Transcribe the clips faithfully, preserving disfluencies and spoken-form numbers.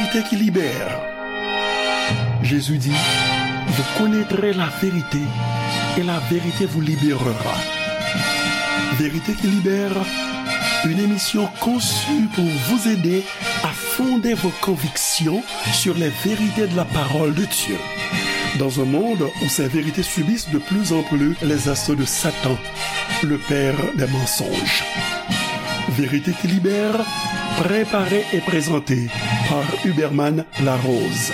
Vérité qui libère. Jésus dit, vous connaîtrez la vérité et la vérité vous libérera. Vérité qui libère, une émission conçue pour vous aider à fonder vos convictions sur les vérités de la parole de Dieu. Dans un monde où ces vérités subissent de plus en plus les assauts de Satan, le père des mensonges. Vérité qui libère, préparée et présentée par Huberman Larose.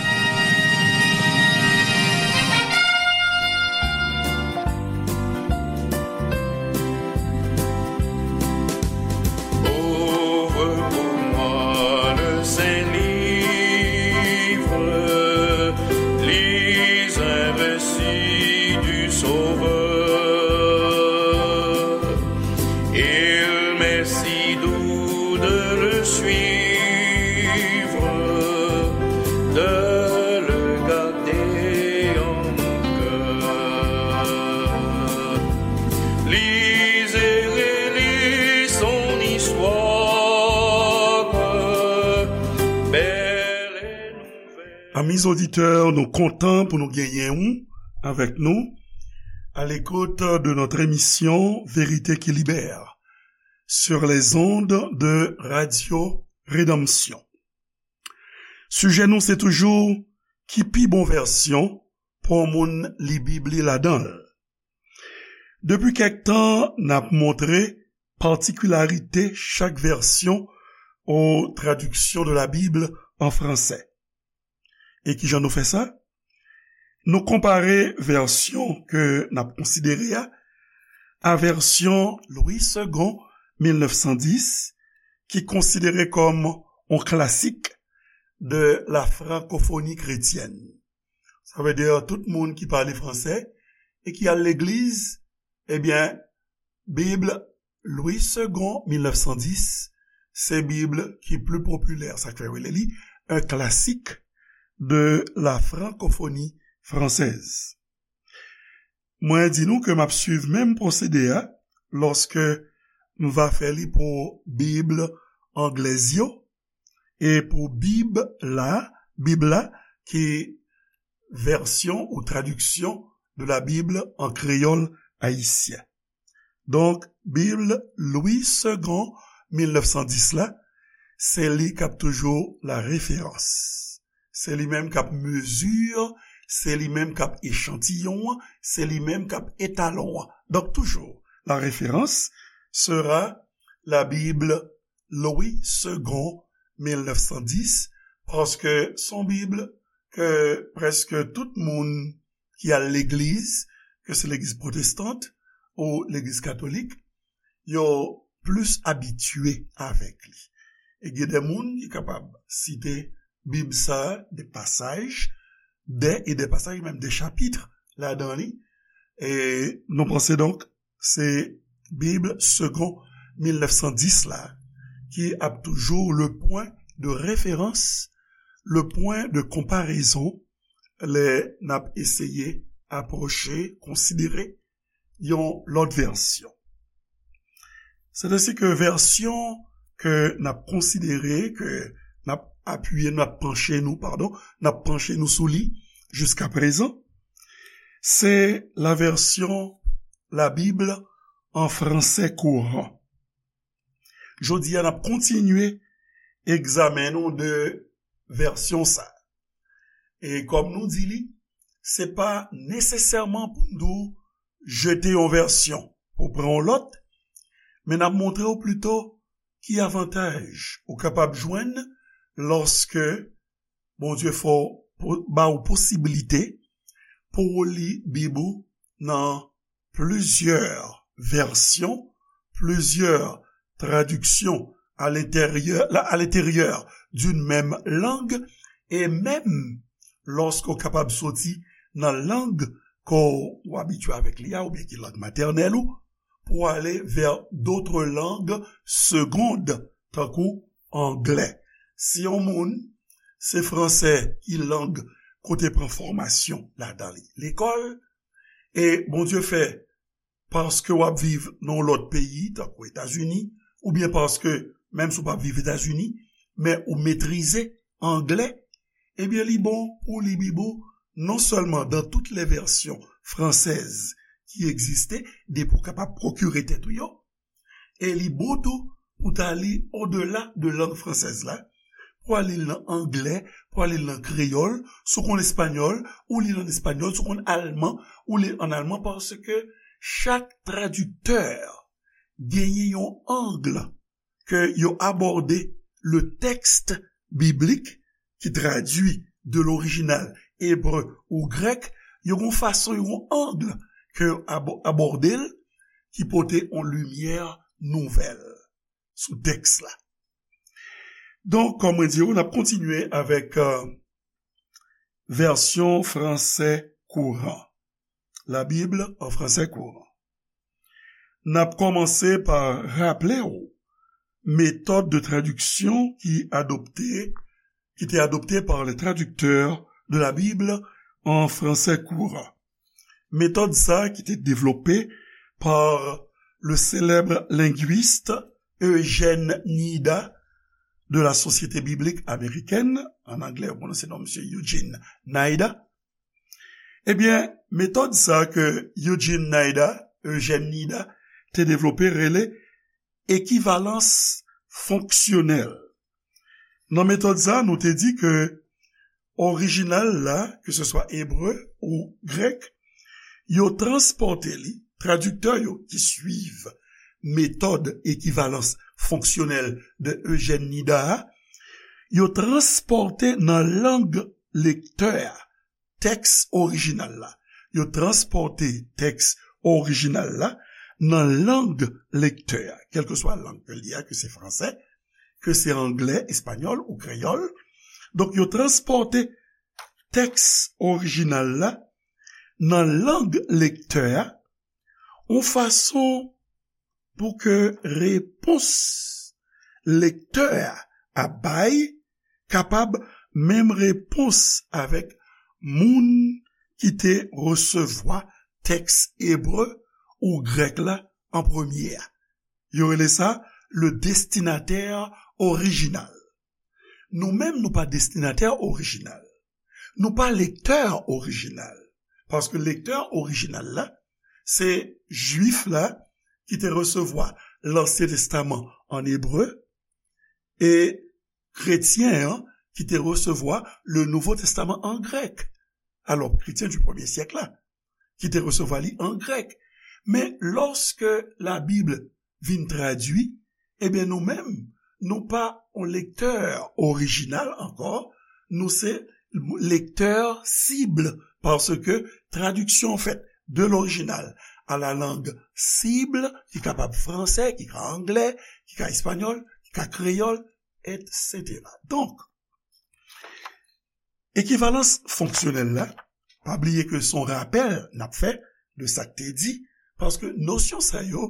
Ouvre pour moi le Saint-Livre, lis un récit du Sauveur. Il m'est si doux de le suivre, de le garder en mon cœur. Lis et relis son histoire, belle et nouvelle. Amis auditeurs, nou kontan pou nou genyen ou avec nous à l'écoute de notre émission Vérité qui libère sur les ondes de Radio Rédemption. Sijè nou se toujou ki pi bon vèsyon pou yon moun li Bib li ladan l. Depi kèk tan, n ap montre patikilarite chak vèsyon ou traduction de la Bible en français. E kijan nou fè sa? Nou konpare vèsyon ke n ap konsidere a a vèsyon Louis Segond mil nèf san dis, ki konsidere kòm yon klasik de la francophonie chrétienne. Sa vle di tout moun ki pale fransè e ki al legliz, ebyen, Bib Louis Segond mil nèf san dis, se Bib ki pli popilè, sa k fè yo rele li un classique de la francophonie française. Mwen di nou ke m ap swiv menm pwosede a lòske m va fè li pou Bib anglèz yo, e pou Bib la, Bib la, ki vèsyon ou tradiksyon de la Bible en créole haïtien. Donk, Bib Louis Segond mil nèf san dis la, se li k ap toujou la référence. Se li menm k ap mezi, se li menm k ap echantiyon an, se li menm k ap etalon an. Donk, toujou, la référence sera la Bible Louis Segond mil nèf san dis, paske se yon Bib ke prèske tout moun ki al legliz, ke se legliz pwotestant ou legliz katolik, yo plis abitye avèk li. E gen de moun ki kapab site Bib sa, de pasaj, de, e de pasaj, menm de chapit ladan li. E nou panse donk, se Bib Segond mil nèf san dis la, ki ap toujou le pwen de referans, le pwen de konparezon, lè n ap eseye apwoche, konsidere yon lòt vèsyon. Sètadi ke vèsyon ke n ap konsidere, ke n ap apiye, n ap panche nou, padon, n ap panche nou sou li jiska prezan, se la version La Bible en français courant. Jodi a, n ap kontinye egzamen nou de vèsyon sa. E kòm nou di li, se pa nesesèman pou n di w jete yon vèsyon pou pran yon lòt, men n ap montre w pito ki avantaj ou kapab jwenn lòske Bondye fè w po-, ba w posiblite pou w li Bib ou nan plizyè vèsyon, plizyè tradiksyon à l'intérieur, la, à l'intérieur d'une même langue, e menm lòske w kapab soti nan lang ke w abitye avèk li a, oubyen ki lang matènèl ou, pou w ale vers d'autres langues secondes, tankou anglè. Si yon moun, se fransè ki lang kote pran fòmasyon ladan li, lekòl, e Bondye fè, paske w ap viv nan yon lòt peyi, tankou Etazini, oubyen paske, menm si w p ap viv Etazini, men ou metrize anglè, ebyen, li bon pou li Bib ou non sèlman dans toutes les versions françaises ki egziste, depi w kapab pwokire tèt ou yo, e li bon tou pou ta li odela de lang fransèz la, pou w al li l nan anglè, pou w al li l nan kreyòl, si w konn espanyòl, ou li l an espanyòl, si w konn alman, ou li l an alman, paske chak tradiktè genyen yon ang ke yo abòde le texte biblique ki tradui de l'original ebre ou grèk, yo gon fason, yo gon ang ke yo abò-, abòde l, ki pote yon limyè nouvèl sou tèks la. Donk, kòm mwen di w, n ap kontinye avèk, euh, vèsyon fransè kouran. La Bible en français courant. N ap kòmanse pa raple w metòd de tradiksyon ki adopte, qui était adoptée par les traducteurs de la Bible en français courant. Metòd sa ki te devlope par le célèbre linguiste Eugène Nida de la Société biblique américaine, an anglè, yo pwononse non misye Eugene Nida. Ebyen, metòd sa ke Eugene Nida, Eugène Nida, te devlope rele ekivalans fonksyonèl. Nan metòd sa, nou te di ke orijinal la, ke se swa ebre ou grèk, yo transpòte li, tradiktè yo ki swiv metòd ekivalans fonksyonèl de Eugène Nida a, yo transpòte nan lang lektè a tèks orijinal la. Yo transpòte tèks orijinal la nan lang lektè a, kèlkeswa lang ke l ye a, ke se fransè, ke se anglè, espanyòl ou kreyòl. Donk, yo transpòte tèks orijinal la nan lang lektè a, yon fason pou ke repons lektè a ap bay kapab menm repons avèk moun ki te resevwa tèks ebre ou grèk la an premye a. Yo rele sa le destinatè orijinal. Nou menm, nou pa destinatè orijinal. Nou pa lektè orijinal. Paske lektè orijinal la, se Jwif la ki te resevwa Lansyen Testaman an ebre e kretyen an ki te resevwa le Nouvo Testaman an grèk. Alò, kretyen di premye syèk la, ki te resevwa li an grèk. Men, lòske Labib vin tradui, ebyen, nou menm, nou pa yon lektè orijinal ankò, nou se lektè sib, paske tradiksyon fèt de l'original à la langue cible, ki kapab fransè, ki ka anglè, ki ka espanyòl, ki ka kreyòl, et cetera. Donk, ekivalans fonksyonèl la, pa bliye ke se yon rapèl n ap fè de sa k te di, paske nosyon sa yo,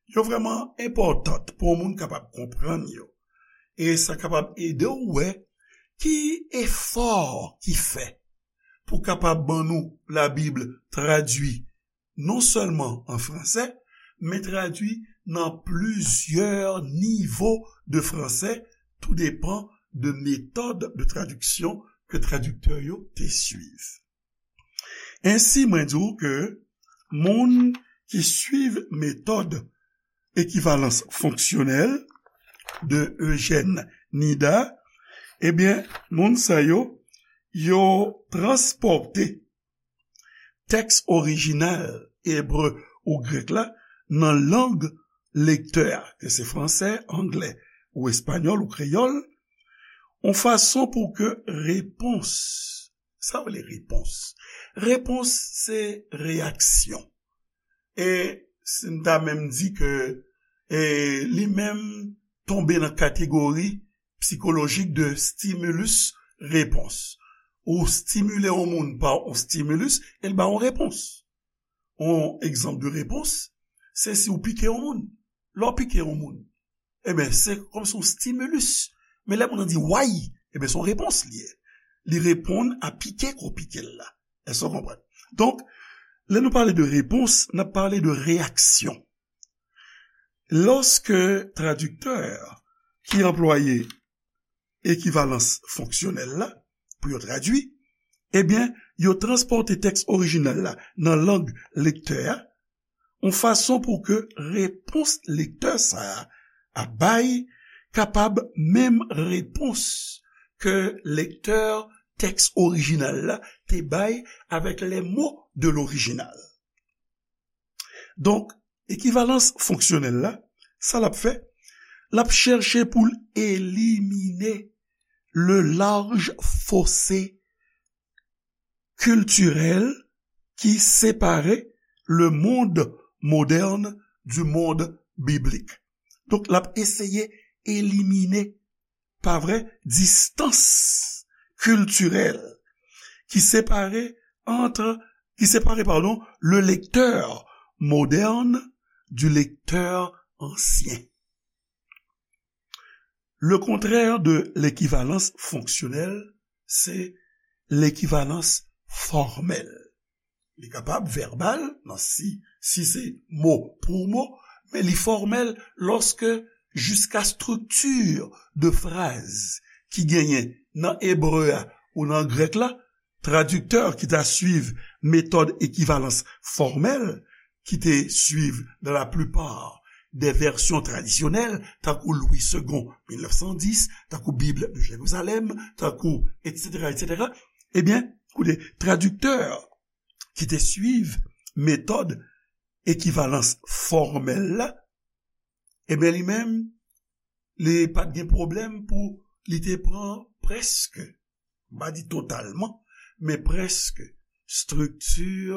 yo vrèman enpòtan pou yon moun kapab konprann yo. E sa kapab ede w wè ki efò ki fè pou kapab ban nou Labib tradui non sèlman an fransè, men tradui nan plizyè nivo de fransè, tou depan de metòd de tradiksyon ke tradiktè yo te swiv. Ensi, mwen di w ke moun ki swiv metòd ekivalans fonksyonèl de Eugène Nida, ebyen, moun sa yo, yo transpòte tèks orijinal ebre ou grèk la nan lang lektè a, ke se fransè, anglè, ou espanyòl, ou kreyòl, yon fason pou ke repons, sa w rele repons? Repons se reyaksyon. E si n ta menm di ke, e, li menm tonbe nan kategori sikolojik de stimulus repons. Ou stimile yon moun pa yon stimulus, e l ba yon repons. Yon egzanp de repons, se si w pike yon moun. Lè w pike yon moun, ebyen, se kòmsi yon stimulus. Men lè moun nan di way, ebyen, se yon repons li ye. Li reponn a pike ke w pike l la. Èske w konprann? Donk, lè nou pale de repons, n ap pale de reyaksyon. Lòske tradiktè ki anplwaye ekivalans fonksyonèl la, pou yo tradui, ebyen, yo transpòte tèks orijinal la nan lang lektè a, yon fason pou ke repons lektè sa a ap bay kapab menm repons ke lektè tèks orijinal la te bay avec les mots de l'original. Donk, ekivalans fonksyonèl la, sa l ap fè, l ap chèche pou l elimine le large fossé culturel qui séparait le monde moderne du monde biblique. Donk, l ap eseye elimine, pa vre, distans kiltirèl ki separe entre, qui sépare, pardon, le lecteur moderne du lecteur ancien. Le contraire de l'équivalence fonctionnelle, c'est l'équivalence formelle. Li kapab vèbal, nan si, si se mo pou mo, men li fòmèl lòske jiska estrikti de fraz ki genyen nan ebre a ou nan grèk la, tradiktè ki ta swiv metòd ekivalans fòmèl, ki te swiv dans la plupart des versions traditionnelles, tankou Louis Segond, mil nèf san dis, tankou Bible de Jérusalem, tankou, et cetera, et cetera. Ebyen, koute, tradiktè ki te swiv metòd ekivalans fòmèl la, ebyen, li menm, li pa t gen pwoblèm pou li te pran prèske, m pa di totalman, men prèske estrikti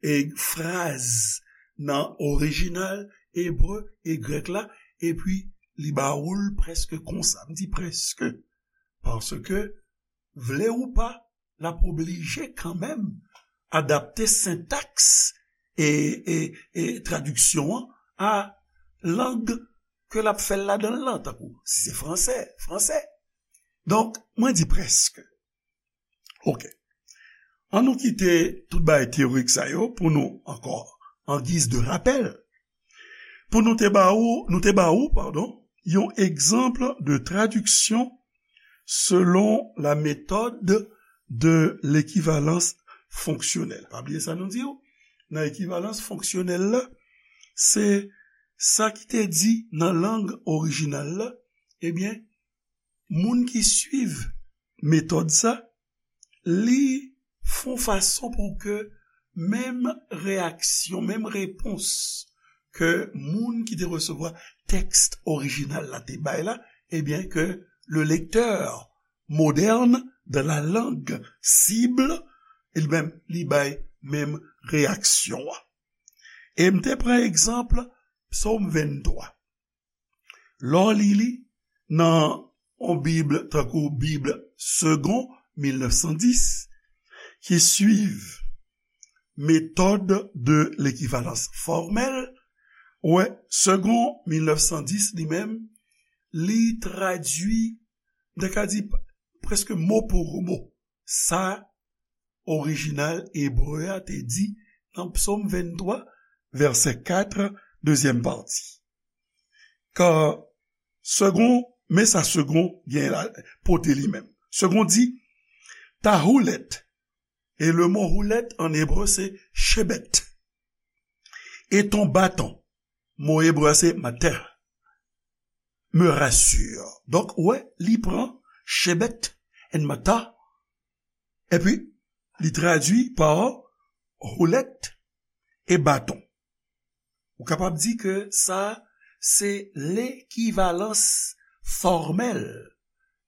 e fraz nan orijinal ebre e grèk la, epi li ba ou l prèske konsa. M di prèske, paske, vle ou pa, l ap oblije kanmenm adapte sentaks e, e, e tradiksyon an a lang ke l ap fè l ladan l lan, tankou si se fransè, fransè. Donk, mwen di prèske. Oke. An nou kite tout bagay teyorik sa yo pou nou ankò, an giz de rapèl, pou nou te ba ou, nou te ba ou, padon, yon egzanp de tradiksyon selon la méthode de l'équivalence fonctionnelle. Pa bliye sa nou di w, nan ekivalans fonksyonèl la, se sa ki te di nan lang orijinal la, ebyen, moun ki swiv metòd sa, li fè yon fason pou ke menm reyaksyon, menm repons ke moun ki te resevwa tèks orijinal la te bay la, ebyen, ke le lecteur moderne de la langue cible, li menm, li bay menm reyaksyon an. E m te pran egzanp Psòm venntwa. Lè w li li nan yon Bib tankou Bib Segond mil nèf san dis, ki swiv méthode de l'équivalence formelle, ou wè, Segond mil nèf san dis li menm, li tradui, m ta ka di, prèske mo pou mo sa orijinal ebre a te di nan Psòm venntwa, vèsè kat, dezyèm pati. Kan Segond, men sa Segond gen la, pote li menm. Segond di, ta houlette. E le mo houlette an ebre se chebet. Et ton bâton. Mo ebre a se matah. Me rassure. Donk, ou wè, li pran chebet and matah, epi li tradui pa houlette e baton. Ou kapab di ke sa, se lekivalans fòmèl.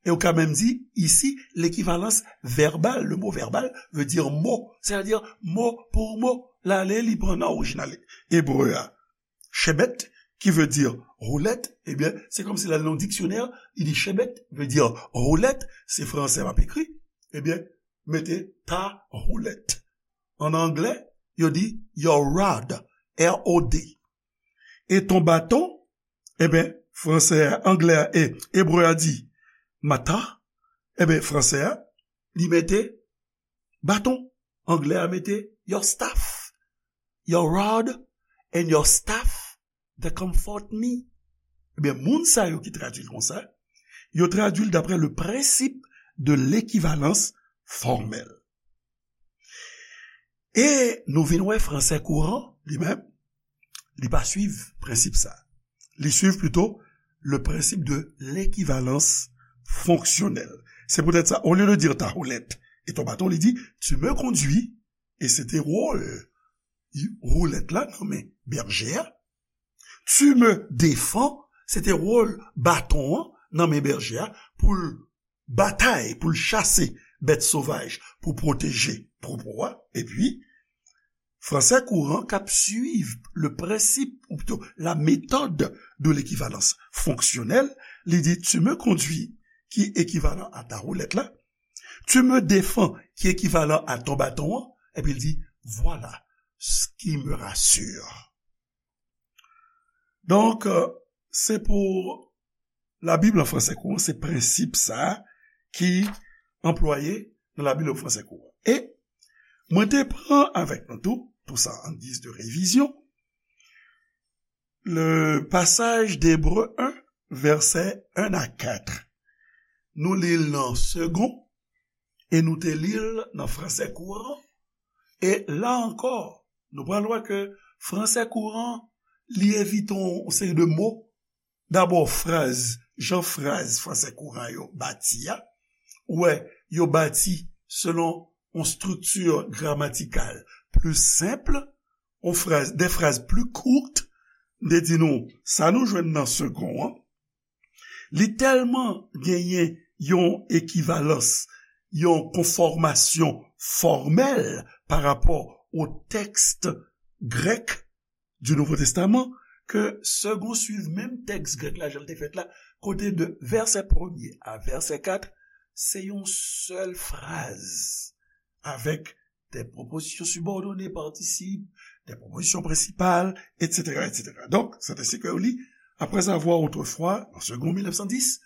E ou ka menm di, isi, lekivalans vèbal. Le mot verbal veut dire mot, c'est-à-dire mot pour mot. L ale, li pran nan orijinal ebre a. Chebet, qui veut dire houlette, ebyen, se kòmsi l al nan yon diksyonè, li di chebet veut dire houlette, se fransè m ap ekri, ebyen, mete ta houlette. An anglè, yo di your rod, R O D. E ton baton, ebyen, fransè a, anglè a, e ebre a di matah, ebyen, fransè a, li mete baton. Anglè a mete your staff. Your rod and your staff, they comfort me. Ebyen, moun sa yo ki tradui l konsa, yo tradui l d'après le principe de l'équivalence formelle. E nou vin wè fransè kouran, li menm, li pa swiv prensip sa. Li swiv plito le principe de l'équivalence fonctionnelle. Se poutèt sa, olye de dire ta houlette et ton bâton, li di, tu me conduis, e se te wòl houlèt la nan men bèje a. Tu me défends, se te wòl baton an nan men bèje a pou l batay, pou l chase bèt sovaj, pou pwoteje twoupo a. Epi, fransè kouran k ap swiv le principe, ou plito la méthode de l'équivalence fonctionnelle, li di, tu me conduis, ki ekivalan a ta houlèt la, tu me défends, ki ekivalan a ton bâton an, epi l di, voilà ce qui me rassure. Donk, euh, se pou Labib an fransè kouran, se prensip sa a ki anplwaye nan Labib an fransè kouran. E mwen te pran avèk nou tou, tou sa an giz de revizyon, le pasaj de Ebre en, vèsè en a kat. Nou li l nan Segond, e nou te li l nan fransè kouran. E la ankò, nou pral wè ke fransè kouran, li evite yon seri de mo. Dabò, fraz, jan fraz fransè kouran yo bati a, ou wè, yo bati selon yon estrikti gramatikal pli senp, yon fraz, de fraz pli kout, m te di nou, sa nou jwenn nan Segond an, li tèlman genyen yon ekivalans, yon konfòmasyon fòmèl pa rapò o tèks grèk di Nouvo Testaman, ke Segond swiv menm tèks grèk la, jan l te fèt la, kote de vèsè premye a vèsè kat, se yon sèl fraz, avèk des prépositions subordonnées, participes, des prépositions principales, et cetera, et cetera. Donc, c'est ainsi que yo li, après avoir autrefois, en Segond mille neuf cent dix,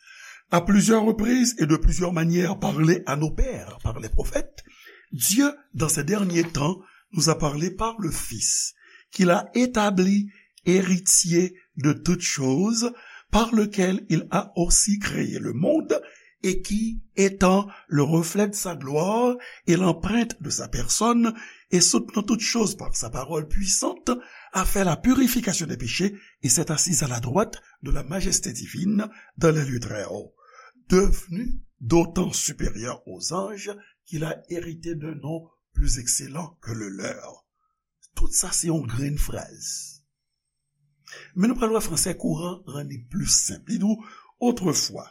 à plusieurs reprises et de plusieurs manières parlé à nos pères par les prophètes, Dieu, dans ces derniers temps, nous a parlé par le Fils, qu'il a établi héritier de toutes choses, par lequel il a aussi créé le monde, et qui, étant le reflet de sa gloire et l'empreinte de sa personne, et soutenant toutes choses par sa parole puissante, a fait la purification des péchés et s'est assis à la droite de la majesté divine dans les lieux très hauts, devenu d'autant supérieur aux anges qu'il a hérité d'un nom plus excellent que le leur. Tout sa se yon grenn fraz. Men nou pral wè fransè kouran rann li pli senp. Li di w, autrefois,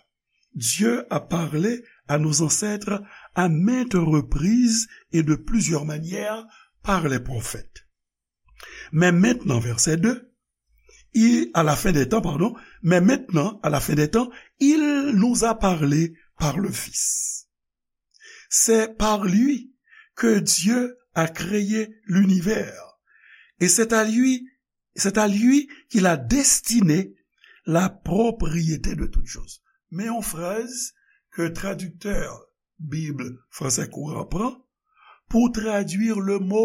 Dieu a parlé à nos ancêtres à maintes reprises et de plusieurs manières par les prophètes. Mais maintenant, verset deux, il, à la fin des temps, pardon, mais maintenant, à la fin des temps, il nous a parlé par le Fils. C'est par lui que Dieu a créé l'univers. Et c'est à lui, c'est à lui qu'il a destiné la propriété de toutes choses. Men yon fraz ke tradiktè Bib fransè kouran pran pou tradui le mo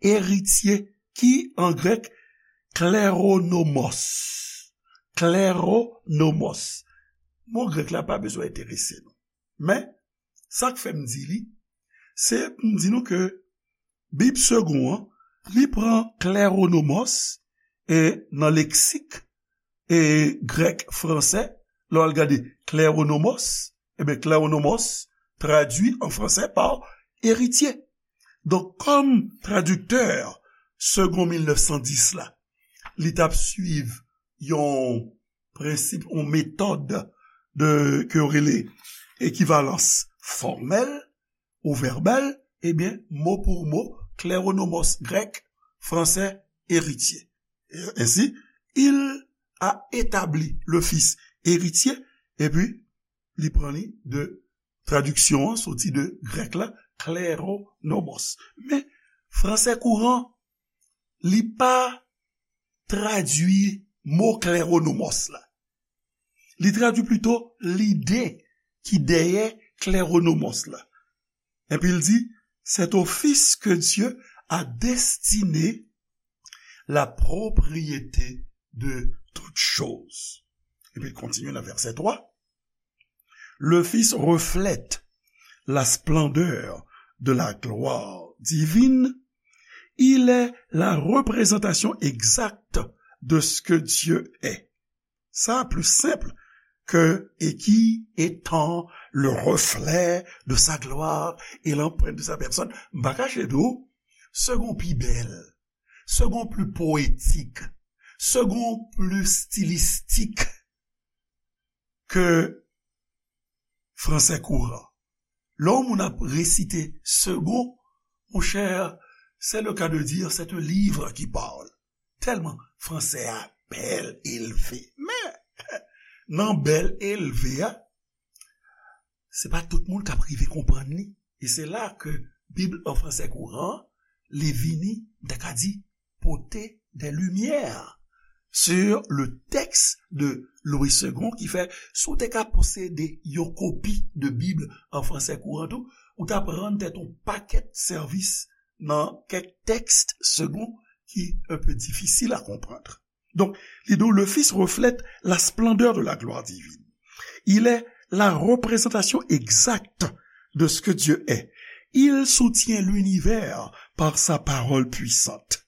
eritye, ki an grèk kleronomos. Kleronomos. Mo grèk la pa bezwen enterese nou. Men, sa k fè m di li, se pou m di nou ke Bib Segond an, li pran kleronomos, e nan leksik, e grèk, fransè, lè w al gade kleronomos, ebyen, kleronomos tradui an fransè pa eritye. Donk, kòm tradiktè Segond mil nèf san dis la, li t ap swiv yon prensip, yon metòd de, ke yo rele ekivalans fòmèl ou vèbal, ebyen, mo pou mo, kleronomos grèk, fransè, eritye. Ensi, il a établi le Fils héritier, epi li pran li de tradiksyon an soti de grèk la, kleronomos. Men, fransè kouran, li pa tradui mo kleronomos la. Li tradui plito lide ki dèyè kleronomos la. Epi l di, c'est au Fils que Dieu a destiné la propriété de toutes choses. Epi l kontinye nan vèsè twa. Le Fils reflète la splendeur de la gloire divine, il est la représentation exacte de ce que Dieu est. Sa pli senp ke et qui étant le reflet de sa gloire et l'empreinte de sa personne. M pa kache di w, second pi bèl, second pli poetik, second pli stilistik ke fransè kouran. Lè yon moun ap resite second, mon cher, c'est le cas de dire, c'est un livre qui parle. Tèlman fransè a bèl, elve. Men, nan bèl, elve a, se pa tout moun k ap rive konprann li. E se la ke Bib an fransè kouran, li vini, m ta ka di, pote des lumières sur le texte de Louis Segond, ki fè, si w te ka posede yon kopi de Bib an fransè kouran tou, ou t ap rann tèt yon pakèt sèvis nan kèk tèks Segond ki un peu difisil a konprann. Donk, li di w, le Fils reflète la splendeur de la gloire divine. Il est la représentation exacte de ce que Dieu est. Il soutient l'univers par sa parole puissante.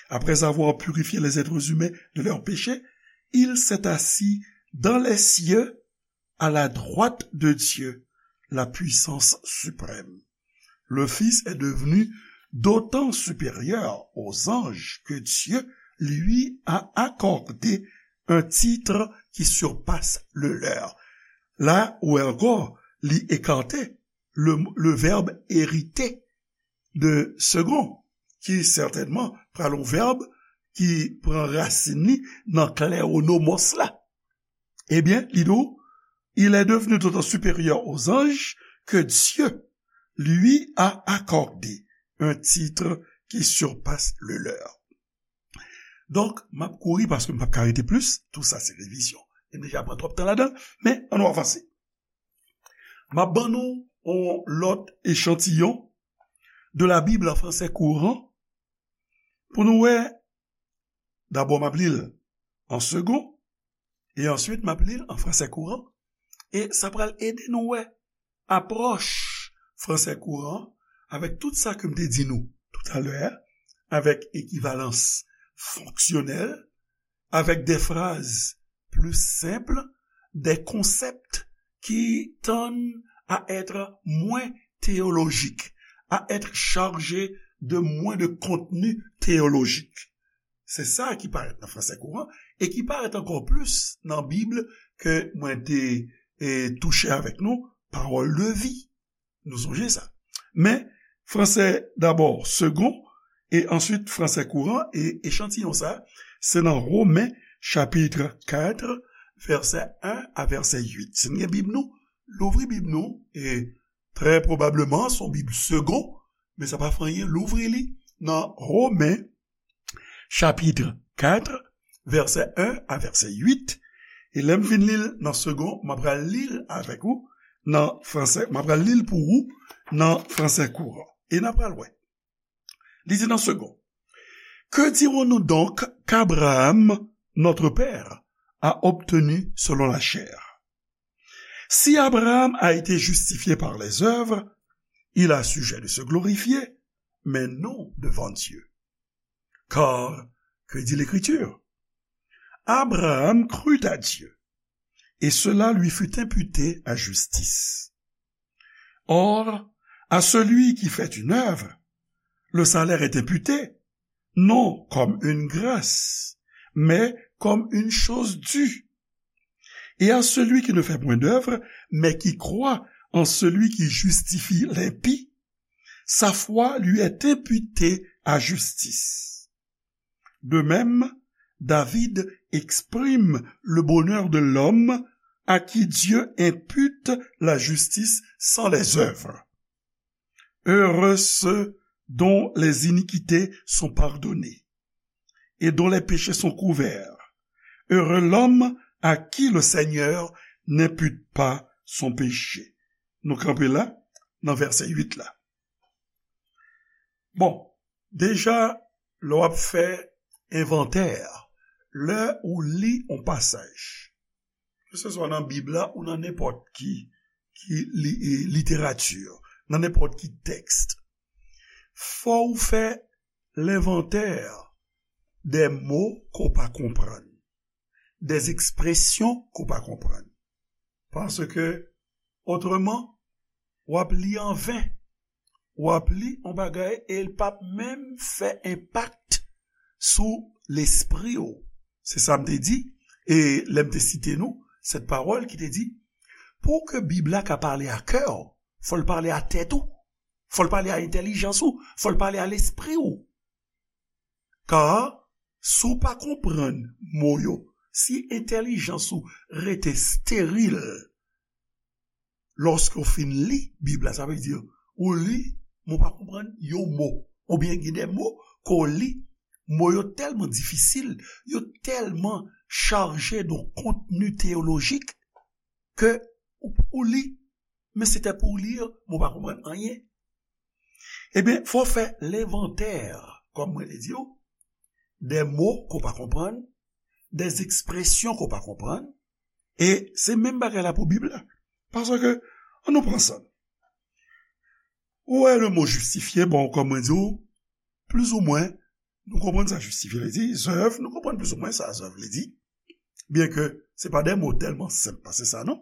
Après avoir purifié les êtres humains de leurs péchés, il s'est assis dans les cieux à la droite de Dieu, la puissance suprême. Le Fils est devenu d'autant supérieur aux anges que Dieu lui a accordé un titre qui surpasse le leur. La ou ankò, li ekate le, le verbe hériter de second, ki sètènman pral yon vèb ki pran rasin li nan kleronomos la. Ebyen, li di w, il est devenu d'autant supérieur aux anges que Dieu lui a accordé un titre qui surpasse le leur. Donk, m ap kouri paske m p ap ka rete plis. Tou sa se revizyon. E m deja pran twòp tan ladan l, men ann nou avanse. M ap ban nou yon lòt echantiyon de la Bible en français courant pou nou wè. Dabò, m ap li l an segon, e answit, m ap li l an fransè kouran, e sa pral ede nou wè apwòch fransè kouran avèk tout sa ke m te di nou toutalè a, avèk ekivalans fonksyonèl, avec des phrases plus simples, des concepts qui tendent à être moins théologiques, à être chargés de moins de contenu théologique. Se sa ki parèt nan fransè kouran e ki parèt ankò plis nan Bib ke mwen te, e, touche avèk nou, Parole de vie. Nou sonje sa. Men, fransè dabò segon, e answit fransè kouran, e echantiyon sa, se nan Women chapit kat, vèsè en a vèsè uit. Si n gen Bib nou, louvri Bib nou, e trè pwobableman, se yon Bib segon, men sa pa fè anyen, louvri li nan Women chapit kat, vèsè en a vèsè uit, e lè m fin li l nan segon, m ap pral li l avèk ou nan fransè, m ap pral li l pou ou nan fransè kouran. E n ap pral wè. Li di nan segon, Que dirons-nous donc qu'Abraham, notre père, a obtenu selon la chair? Si Abraham a été justifié par les œuvres, il a sujet de se glorifier, mais non devant Dieu. Car, que dit l'Écriture? Abraham crut à Dieu, et cela lui fut imputé à justice. Or, à celui qui fait une œuvre, le salaire est imputé, non comme une grâce, mais comme une chose due. Et à celui qui ne fait point d'œuvre, mais qui croit en celui qui justifie l'impie, sa foi lui est imputée à justice. De même, David exprime le bonheur de l'homme à qui Dieu impute la justice sans les œuvres. Heureux ceux dont les iniquités sont pardonnées et dont les péchés sont couverts. Heureux l'homme à qui le Seigneur n'impute pas son péché. Nou kanpe la, nan vèsè uit la. Bon, deja, lè w ap fè envantè, lè ou li yon pasaj, keseswa nan Bib la ou nan nenpòt ki ki li, e, literati, nan nenpòt ki tèks, fò w fè lenvantè dè mo ke w pa konprann, dè ekspresyon ke w pa konprann. Paske, otreman, w ap li anven. W ap li yon bagay e l p ap menm fè enpak sou lespri w. Se sa m te di, e lè m te site nou, sèt pawòl ki te di, pou ke Bib la ka pale a kè w, fò l pale a tèt ou, fò l pale a entèlijans ou, fò l pale a lespri w. Ka, si w pa konprann mo yo, si entèlijans ou rete steril, lòske w fin li Bib la, sa vle di, ou li, men w pa konprann yon mo. Oubyen gen de mo ke w li, mo yo tèlman difisil, yo tèlman chaje de kontni teyolojik ke ou, ou li, men se te pou w li, men w pa konprann anyen. Ebyen, fò w fè lenvantè, kòm mwen te di w, de mo ke w pa konprann, de ekspresyon ke w pa konprann, e se menm bagay la pou Bib la. Paske, ann nou pran sa. Ou wè le mo jistifye, bon, kòm mwen di w, plizoumwen, nou konprann sa jistifye vle di, zèv, nou konprann plizoumwen sa zèv vle di. Byen ke se pa de mo tèlman senp pase sa, non?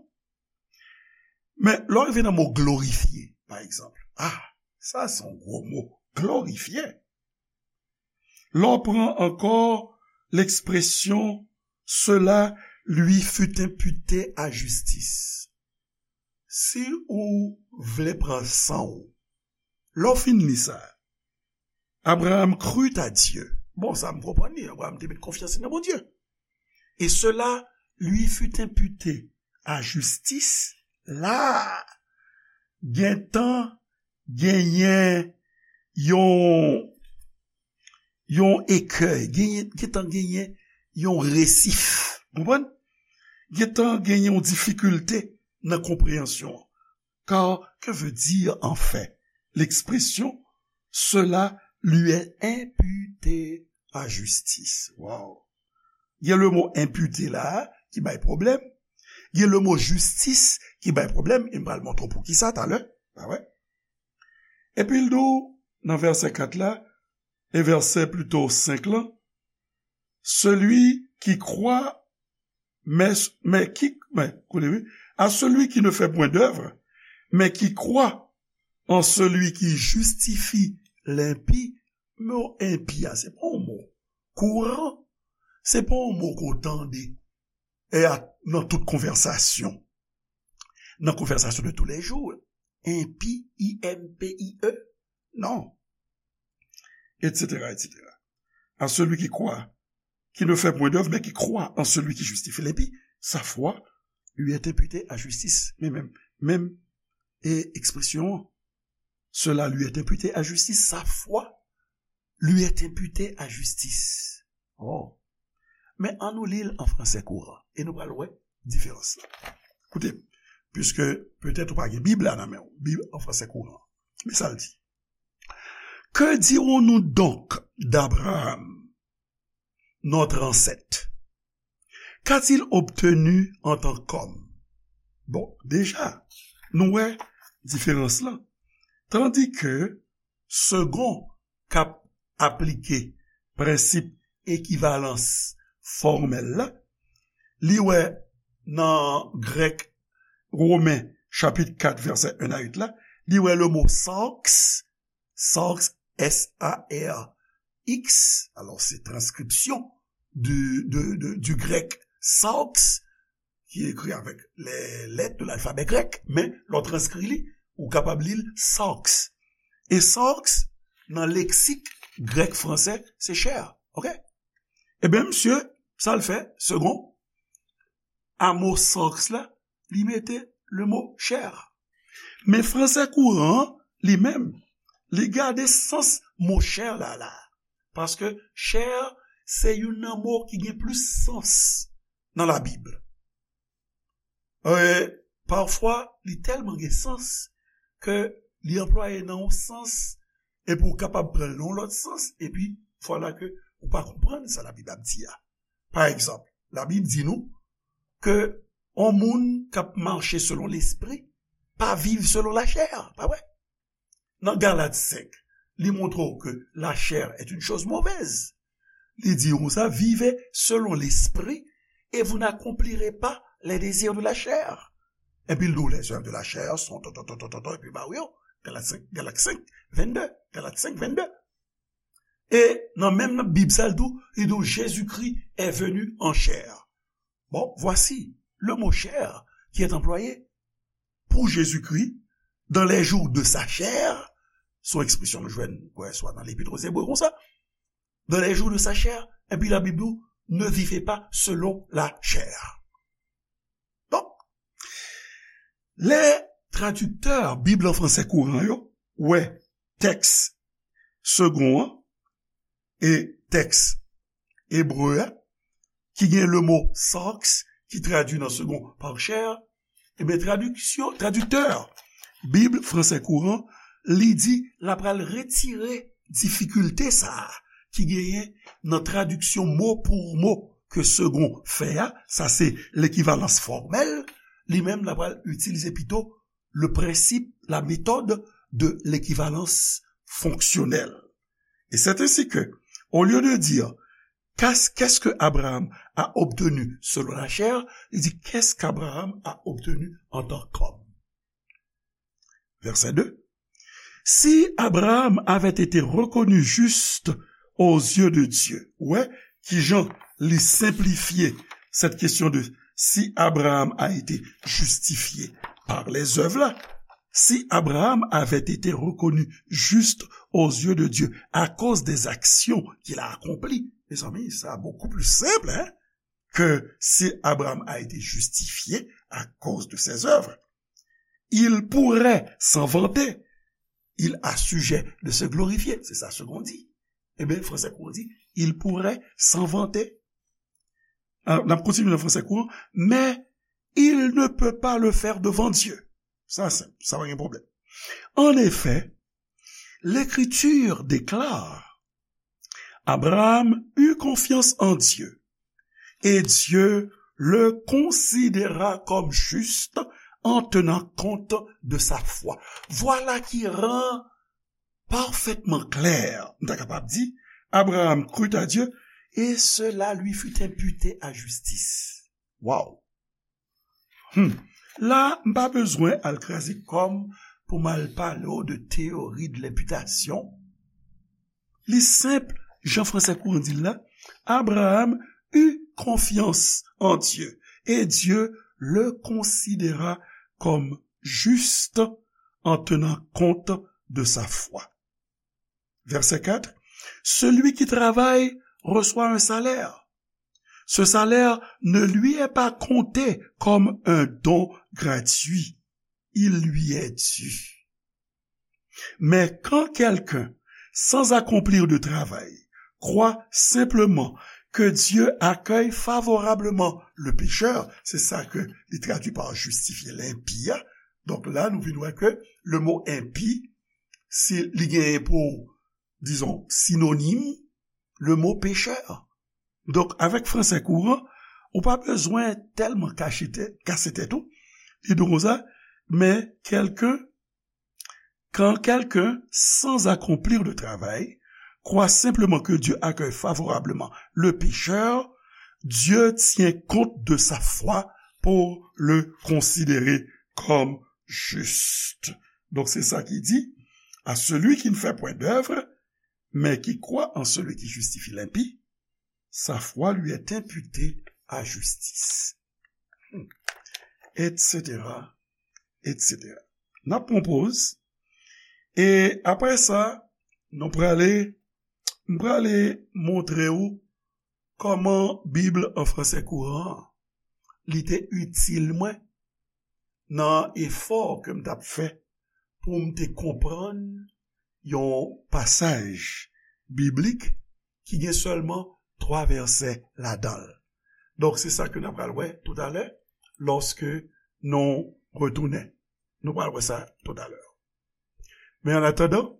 Men, lè w rive nan mo glorifye, pa egzanp, ah, sa se yon gwo mo, glorifye. Lè w pran ankò lekspresyon, cela lui fut imputé à justice. Si ou vle pran san w, lè w fin li sa, Abraham crut à Dieu. Bon, sa m konprann li, Abraham te met konfyans li nan Bondye. Et cela lui fut imputé à justice. La, gentan genyen yon, yon ekèy, genyen, gentan genyen yon resif. Konprann? Gentan genyen yon difikilte nan konpreyansyon an. Car que veut dire en fait l'expression cela lui est imputé à justice? Wow! Gen le mo imputé la ki bay pwoblèm. Gen le mo justice ki bay pwoblèm. E m pral montre w poukisa talè. Pa vre? Epi l di w nan vèsè kat la, e vèsè plito senk lan, celui qui croit, mais, mais qui, mais, koute, wi, à celui qui ne fait point d'œuvre, mais qui croit en celui qui justifie l'impie, mo enpi a, se pa yon mo kouran, se pa yon mo ke w tande e a, nan tout konvèsasyon. Nan konvèsasyon de tous les jours, enpi, I M P I E, non. Et cetera, et cetera. À celui qui croit, qui ne fait point d'œuvre, mais qui croit en celui qui justifie l'impie, sa fwa lui est imputée à justice. Men menm, menm, e ekspresyon an, cela lui est imputé à justice, sa fwa lui est imputé à justice. Oh. Men ann nou li l an fransè kouran e nou pral wè diferans la. Koute, puiske petèt ou pa gen Bib la nan men w, Bib an fransè kouran. Men sa l di. Que dirons-nous donc d'Abraham, notre ancêtre? Qu'a-t-il obtenu en tant qu'homme? Bon, deja, nou wè diferans lan. Tandis que Segond k ap aplike prensip ekivalans fòmèl la, li wè nan grèk Women chapit kat vèsè en a uit la, li wè le mo sarx, sarx, S A R X, alò se transkripsyon du, de, de, du grec sarx, ki ekri avèk les lettres de l'alphabet grec, men lè w transkri li, ou kapab li l sarx. E sarx, nan leksik grèk fransè, se chè, oke? Ebyen, misye, sa l fè, Segond, a mo sarx la, li mete le mo chè. Men fransè kouran an, li menm, li gade sans mo chè la la. Paske chè, se youn nan mo ki gen plis sans nan Labib. E, pafwa, li tèlman gen sans ke li anplwaye nan yon sans, epi w kapab pran l nan yon lòt sans, epi vwala ke ou pa konprann sa Labib ap di a. Pa egzanp, Labib di nou ke yon moun k ap mache selon Lespri, pa viv selon lachè, pa vre? Nan Galat senk, li montre w ke la chair est une chose mauvaise. Li di konsa, vivez selon l'esprit et vous n'accomplirez pas les désirs de la chair. Epi l di w les œuvres de la chair sont ton, ton, ton, ton, ton, ton, epi ba w yo. Galat senk, Galat senk, vennde, Galat senk, vennde. E nan menm Bib sa, l di w, li di w, Jésus-Christ est venu en chair. Bon, voici le mot chair qui est employé pour Jésus-Christ dans les jours de sa chair. Se yon ekspresyon nou jwenn, kwè, swa nan Lepit aux Hébreux konsa. Dans les jours de sa chair, epi Labib di w, ne vivez pas selon la chair. Donk, lè tradiktè Bib an fransè kouran yo wè tèks segon an e tèks ebre a, ki gen le mo sarx, ki tradui nan segon par chair, ebyen, tradiksyon, tradiktè Bib fransè kouran, li di l ap pral retire difikilte sa a ki genyen nan tradiksyon mo pou mo ke segon fè a, sa se lekivalans fòmèl, li menm l ap pral itilize pito le principe, la méthode de l'équivalence fonctionnelle. Et c'est ainsi que, au lieu de dire, qu'est-ce, qu'est-ce que Abraham a obtenu selon la chair, il dit, qu'est-ce qu'Abraham a obtenu en tant qu'homme? Verset deux. Si Abraham avait été reconnu juste aux yeux de Dieu, ou wè, kijan li senplifye cette question de si Abraham a été justifié par les œuvres là, si Abraham avait été reconnu juste aux yeux de Dieu à cause des actions qu'il a accomplies. Mes amis, ça beaucoup plus simple, hein, que si Abraham a été justifié à cause de ses œuvres. Il pourrait s'en vanter. Il a sujet de se glorifier. C'est ça ce qu'on dit. Eh bien, français qu'on dit, il pourrait s'en vanter. Alors, n ap kontinye nan fransè kouran, mais il ne peut pas le faire devant Dieu. Sa senp, sa pa gen pwoblèm. En effet, l'Écriture déclare, Abraham eut confiance en Dieu, et Dieu le considéra comme juste en tenant compte de sa foi. Voilà qui rend parfaitement clair, nou ta kapab di, Abraham crut à Dieu, et cela lui fut imputé à justice. Wow! Hmm. La, m pa bezwen al kraze kò m pou m al pale w de théorie de l'imputation. Li senp, jan fransè kouran di l la, Abraham eut confiance en Dieu, et Dieu le considéra comme juste en tenant compte de sa foi. Verset quatre, celui qui travaille reçoit un salaire. Ce salaire ne lui est pas compté comme un don gratuit. Il lui est dû. Mais quand quelqu'un, sans accomplir de travail, croit simplement que Dieu accueille favorablement le pécheur, c'est ça que li tradui par justifier l'impie. Donc là, nou vin wè ke le mot impie, si li genyen pou, disons, synonyme, le mot pécheur. Donk, avèk fransè kouran, ou pa bezwen tèlman kache tèt, kase tèt ou. Li di konsa, mais quelqu'un, quand quelqu'un, sans accomplir de travail, croit simplement que Dieu accueille favorablement le pécheur, Dieu tient compte de sa foi pour le considérer comme juste. Donc, c'est ça qui dit, à celui qui ne fait point d'œuvre, mais qui croit en celui qui justifie l'impie, sa foi lui est imputée à justice. Hmm. Et cetera, et cetera. N ap pran poz. E apre sa, nou prale, m prale montre w kòman Bib an fransè kouran an, li te itil mwen nan efò ke m t ap fè pou m te konprann yon pasaj biblik ki gen sèlman twa vèsè ladan l. Donk, se sa ke n ap pral wè toutalè, lòske nou retounen. Nou pral wè sa toutalè. Men an atandan,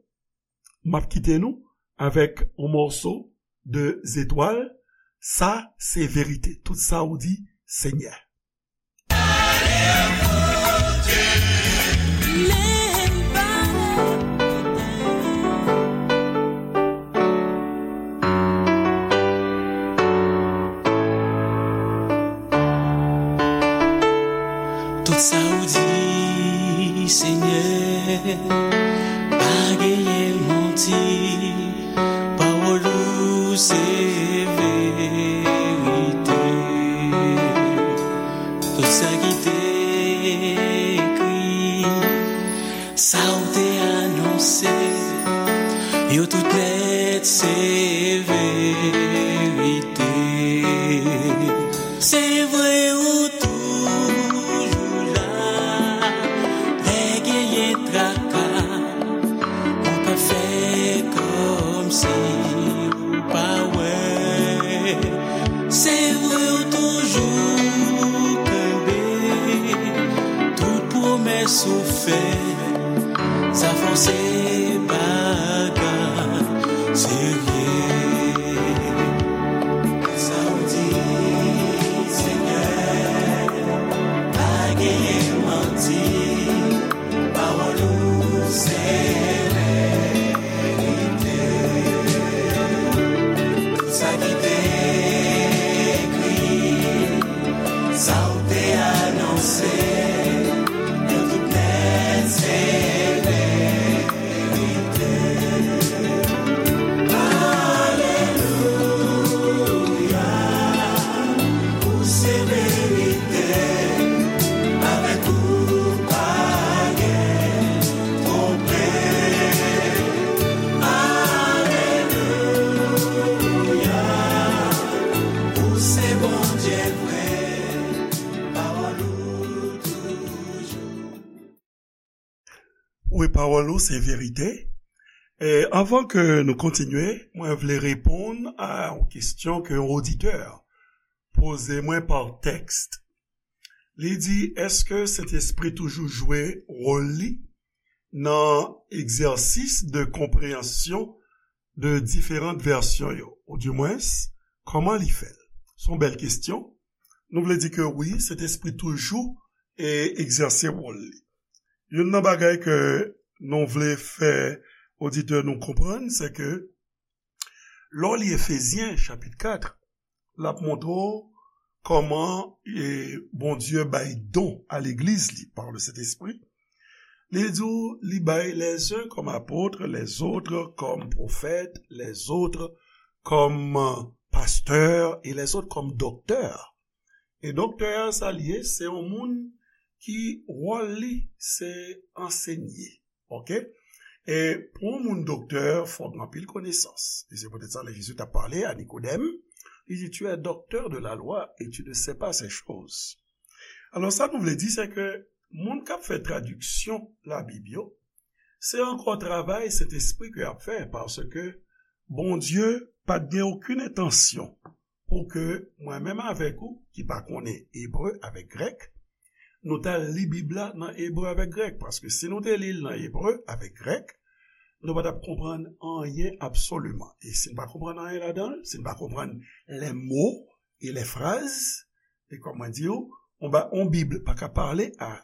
m ap kite nou avèk yon mòso de Zetwal. Sa se verite. Tout sa ou di, Senyè. Pa genyen manti, pawòl ou se verite. Tout sa ki te ekri, sa w te anonse, yo tout nèt se verite. Se vre ou toujou la, lè genyen traka, ou pa fè kòmsi ou pa wè. Se vre ou toujou kenbe tout pwomès ou fè. Sa fè w se bagay serye. Sa w di, Senyè, pa genyen manti. Pawòl ou se verite. Tout sa ki te ekri, sa w te anonse, yo tout nèt se verite. Alelouya, ou se verite, avèk ou pa gen twonpe. Alelouya, ou se Bondye vre, pawòl ou toujou. Wi, pawòl ou se verite. E anvan ke nou kontinye, mwen vle reponn a yon kesyon ke yon oditè poze mwen pa tèks. Li di, èske Sentespri toujou jwe wòl li nan egzèsis de konpreyansyon de diferan vèsyon yo? Oudimwens, kòman li fè l? Se yon bèl kesyon. Nou vle di ke wi, Sentespri toujou e egzèse wòl li. Youn nan bagay ke nou vle fè oditè nou konprann, se ke lè w li Efezyen chapit kat, l ap montre w kòman e, Bondye bay don a legliz li par le Sentespri. Li di w, li bay les uns comme apôtres, les autres comme prophètes, les autres comme pasteurs et les autres comme docteurs. E doktè a sa l ye, se yon moun ki wòl li se ansenye. Oke? E pou yon moun doktè, fòk gen anpil konesans. E se poutèt sa lè Jezi t ap pale a Nikodèm, li di, tu es docteur de la loi et tu ne sais pas ces choses. Alò, sa nou vle di, se ke moun k ap fè tradiksyon Labib yo, se ankò travay Sentespri ke y ap fè, paske Bondye pa t gen okenn entansyon pou ke mwen menm avèk ou, ki pa konnen ebre avèk grèk, nou t al li Bib la nan ebre avèk grèk, paske si nou te li l nan ebre avèk grèk, nou pa t ap konprann anyen absoliman. E si n pa konprann anyen ladan l, si n pa konprann les mots et les phrases, e kòm mwen di w, on ba, on Bib pa ka pale a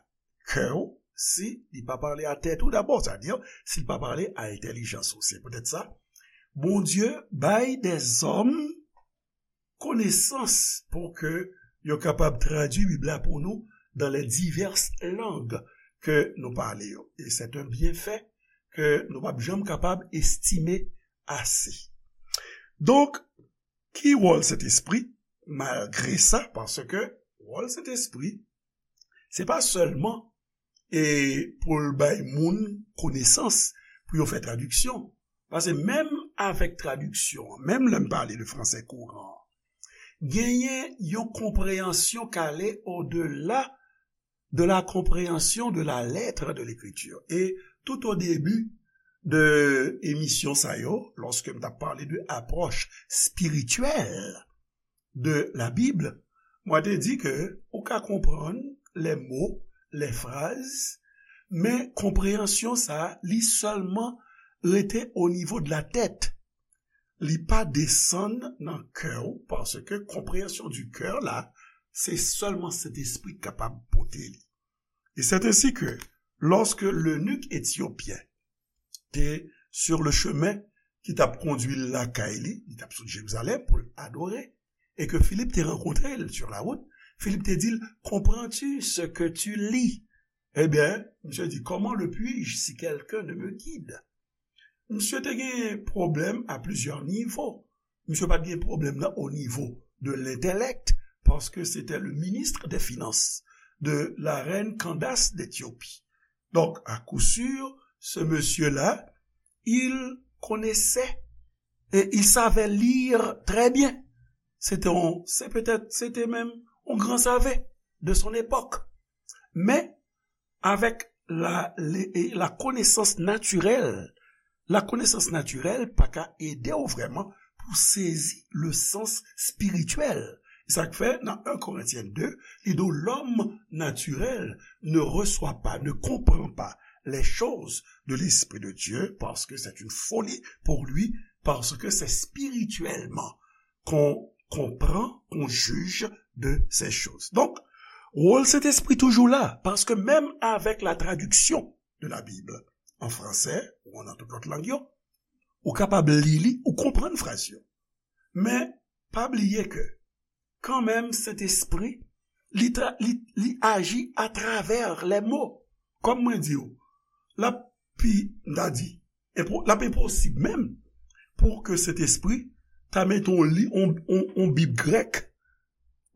kè w si li pa pale a tèt ou dabò, sètadi si l pa pale a entèlijans ou. Se poutèt sa, Bondye bay dèzòm konesans pou ke yo kapab tradui Bib la pou nou dans les diverses langues ke nou pale yo. E c'est un bienfait ke nou p ap janm kapab estime ase. Donk, ki wòl Sentespri? Malgre sa, paske wòl Sentespri, se pa sèlman e pou l bay moun konesans pou yo fè tradiksyon. Paske menm avèk tradiksyon an, menm lè m pale de fransè kouran an, genyen yon konpreyansyon k ale odela de la compréhension de la lettre de l'Écriture. Et tout au début de emisyon sa yo, lòske m t ap pale de apwòch espirityèl de la Bib, mwen te di ke ou ka konprann les mots, les phrases, men konpreyansyon sa a, li sèlman rete o nivo de la tèt. Li pa desann nan kè w, paske konpreyansyon du cœur la, se sèlman Sentespri k kapab pote li. Et c'est ainsi que, lorsque l'eunuque éthiopien te sur le chemin ki t ap kondui l lakay li, li t ap sot Jerizalèm pou l adore, e ke Filip te rankontre l sur la route, Filip te di l, comprends-tu ce que tu lis? Ebyen, misye di, comment le puis-je si quelqu'un ne me guide? Misye te gen pwoblèm a plizyè nivo. Misye pa t gen pwoblèm nan o nivo de l'intellect, parce que c'était le ministre des Finances de la reine Candace d'Éthiopie. Donc, à coup sûr, ce monsieur-là, il connaissait et il savait lire très bien. C'était un, c'est peut-être, c'était même un grand savant de son époque. Mais avec la, la connaissance naturelle, la connaissance naturelle pa ka ede w vrèman pou sezi le sens spirituel. Sa k fè nan un Corinthiens deux, li di w, l'homme naturel ne reçoit pas, ne comprend pas les choses de l'Esprit de Dieu, parce que c'est une folie pour lui, parce que c'est spirituellement qu'on comprend, qu'on juge de ces choses. Donk, wòl Sentespri toujou la, paske menm avèk la tradiksyon de la Bib an fransè ou nan tout lòt lang yo, ou kapab li li, ou konprann fraz yo. Men, pa bliye ke, kanmenm, Sentespri, li, tra, li, li aji atravè lè mo. Kòm mwen di w, l ap pi, m ta di, enpo, l ap enposib menm pou ke Sentespri ta mete yon li, yon, yon, yon Bib grèk,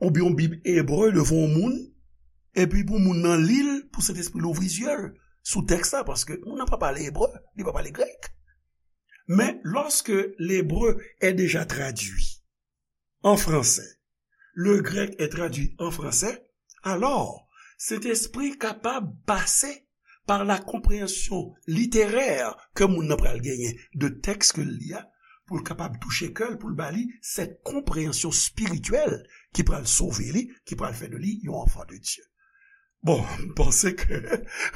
oubyen yon Bib ebre devan yon moun, epi pou moun nan li l, pou Sentespri louvri zye l sou tèks la, paske moun nan pa pale ebre, li pa pale grèk. Mais lorsque l'hébreu est déjà traduit en français, le grec est traduit en français, alors, Sentespri kapab pase par la compréhension littéraire ke moun nan pral genyen de tèks ke l li a, pou l kapab touche kè l, pou l ba li cette compréhension spirituelle ki pral sove li, ki pral fè de li yon enfant de Dieu. Bon, m panse ke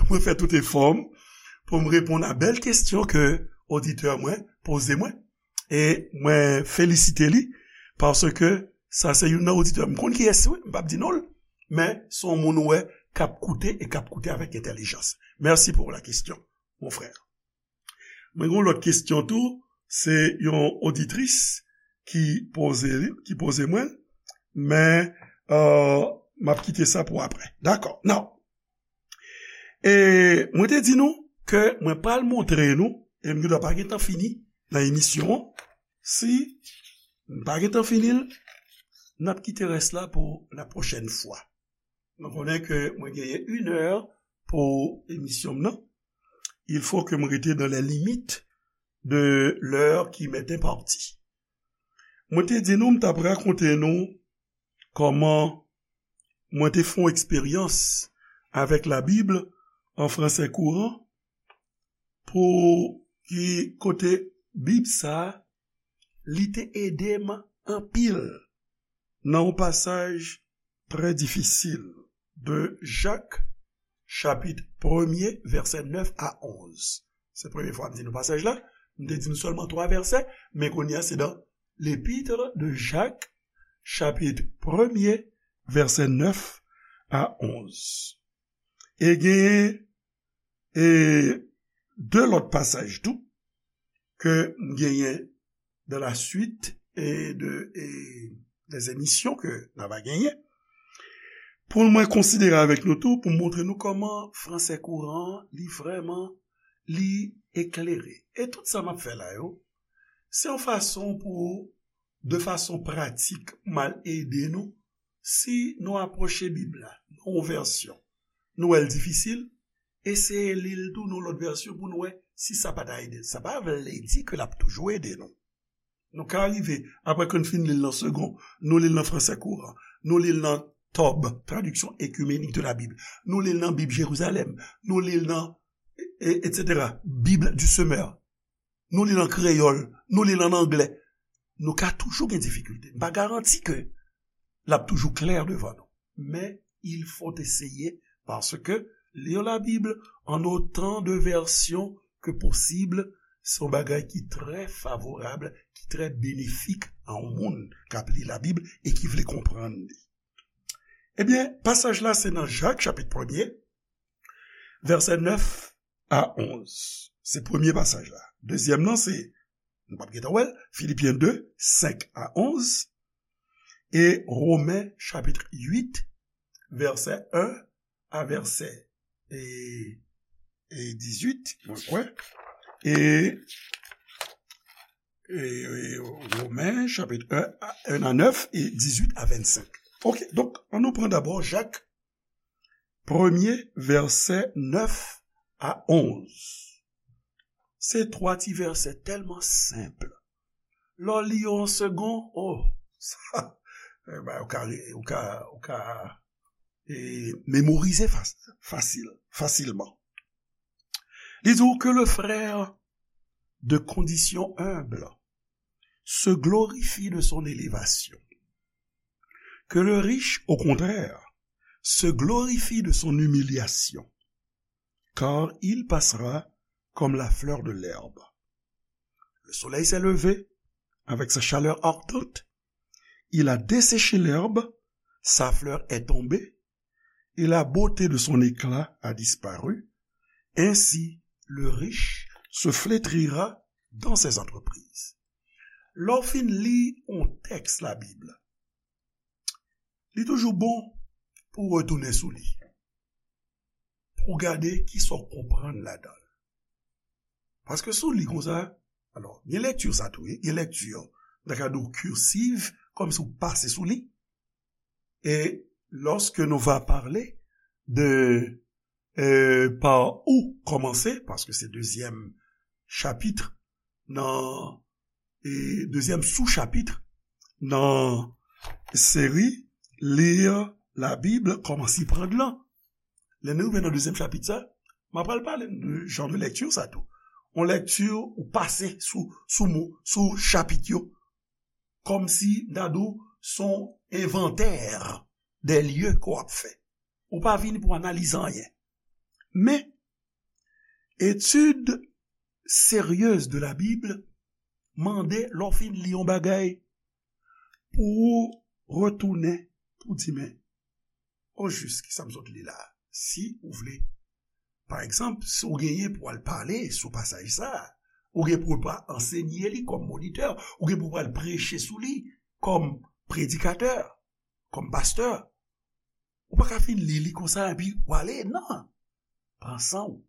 mwen fè tout efò m pou m reponn a bèl kesyon ke oditè mwen poze mwen. E mwen felisite li, paske sa se youn nan oditè. M konn kiyès li, wi, m p ap di non l, men se yon moun ou wè k ap koute e k ap koute avèk entèlijans. Merci pour la question, mon frère. Mwen gen yon lòt kesyon tou, se yon oditris ki poze li, ki poze mwen, men, euh, m ap kite sa pou apre. Dakò. Now, e mwen te di nou ke mwen pral montre nou, e m gendwa pa gentan fini nan emisyon an. Si m pa gentan fini l, n ap kite rès la pou la pwochèn fwa. Nou konnen ke mwen genyen inè pou emisyon m nan. Il faut que m rete dans les limites de l'heure qui m'est impartie. Mwen te di nou, m t ap rakonte nou kòman mwen te fè yon eksperyans avèk Labib an fransè kouran, pou ki kote Bib sa a, li te ede m anpil nan yon pasaj trè difisil de Jak, chapit premye, vèsè nèf a onz. Se premye fwa m di nou pasaj la. M te di nou sèlman twa vèsè, men kounye a se dans l'épître de Jacques, chapit premye, vèsè nèf a onz. E genyen, e, de lòt pasaj tou ke m genyen dans la suite e de, e, des émissions ke n ava genyen, pou mwen konsidere avèk nou tou, pou m montre nou kòman fransè kouran an, li vrèman, li eklere. E tout sa m ap fè la yo, se yon fason pou, de fason pratik, m al ede nou, si nou apwoche Bib la nan yon vèsyon, nou wè l difisil, eseye li l tou nan lòt vèsyon pou nou wè si sa pa ta ede. Sa pa vle di ke l ap toujou ede nou. Nou ka rive, apre ke n fin li l nan Segond, nou li l nan fransè kouran, nou li l nan Tob, Traduction Œcuménique de la Bible, nou li l nan Bib Jerizalèm, nou li l nan, e, e, etsetera, Bible du Semeur, nou li l an kreyòl, nou li l an anglè. Nou ka toujou gen difikilte. M pa garanti ke l ap toujou klè devan nou. Men, il faut essayer, paske lire la Bible en autant de versions que possible, se yon bagay ki trè favorab, ki trè benefik a yon moun k ap li Labib e ki vle konprann li. Ebyen, pasaj la se nan Jak, chapit premye, vèsè nèf a onz. Se premye pasaj la. Dezyèm nan se, nou p ap gentan wè l, Filipyen de, senk a onz, e Women, chapit uit, vèsè en a vèsè e, e dizuit, mwen kwè. E, e, e Women, chapit en a, en a nèf e dizuit a vennsenk. Ok, donk, ann nou pran dabò Jak, premye vèsè nèf a onz. Se twa ti vèsè tèlman senp. Lè w li yo an segon, oh, sa, eh ben, ou ka, ou ka, ou ka, e, memorize fas-, fasil, fasilman. Li di w, que le frère de condition humble se glorifie de son élévation, que le riche, au contraire, se glorifie de son humiliation, car il passera comme la fleur de l'herbe. Le soleil s'est levé avec sa chaleur ardente, il a desséché l'herbe, sa fleur est tombée, et la beauté de son éclat a disparu. Ainsi, le riche se flétrira dans ses entreprises. Lè w fin li yon tèks Labib, li toujou bon pou w retounen sou li, pou w gade kisa w konprann ladan l. Paske si w li konsa, alò, gen lekti sa tou, wi, gen lekti, m ta ka di w cursive, kòmsi w pase sou li. Et lorsque nous va parler de, euh, par où commencer, paske se dezyèm chapit nan, e dezyèm sou-chapit nan seri Lire la Bib, kòman s'y prendre lan. Lè nou rive nan dezyèm chapit sa, m ap pral pale de jan de lekti sa tou. Yon lekti ou pase sou, sou mo, sou chapit yo. Kòmsi, m ta di w, se yon envantè de lye ke w ap fè. Ou pa vini pou analize anyen. Men, etid seryez de la Bib mande, lè w fin li yon bagay, pou w retounen, pou w di, men, ojis, kisa m sot li la? Si ou vle, pa egzanp, si w genyen pou w al pale sou pasaj sa, ou gen pou w pa ansenye li kòm monitè, ou gen pou w al preche sou li kòm predikatè, kòm pastè. Ou pa ka fin li li konsa epi w ale, non. Pran san w,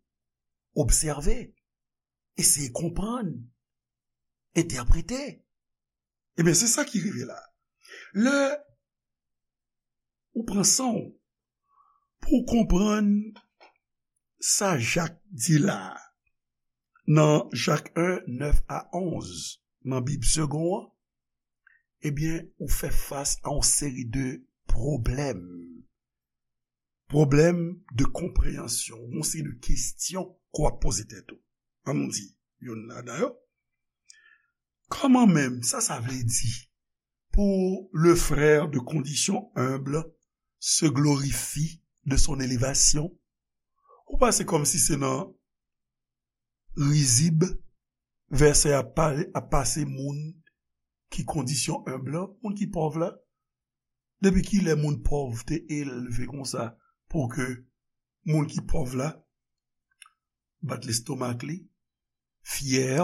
obsève, eseye konprann, entèprete. Ebyen, se sa ki rive la. Lè ou pran san w pou w konprann sa Jak di la a, nan Jak en, nèf a onz, nan Bib Segond an, ebyen, ou fè fas a yon seri de pwoblèm. Pwoblèm de konpreyansyon, yon seri de kesyon ke w ap poze tèt ou. Ann nou di, youn ladan yo. Kòman menm sa, sa vle di pour le frère de condition humble se glorifie de son élévation? Ou panse kòmsi se nan rizib vèsè a pa-, a pase moun ki kondisyon enb la, moun ki pòv la? Depi kilè moun pòv te elve konsa pou ke moun ki pòv la bat lestomak li, fyè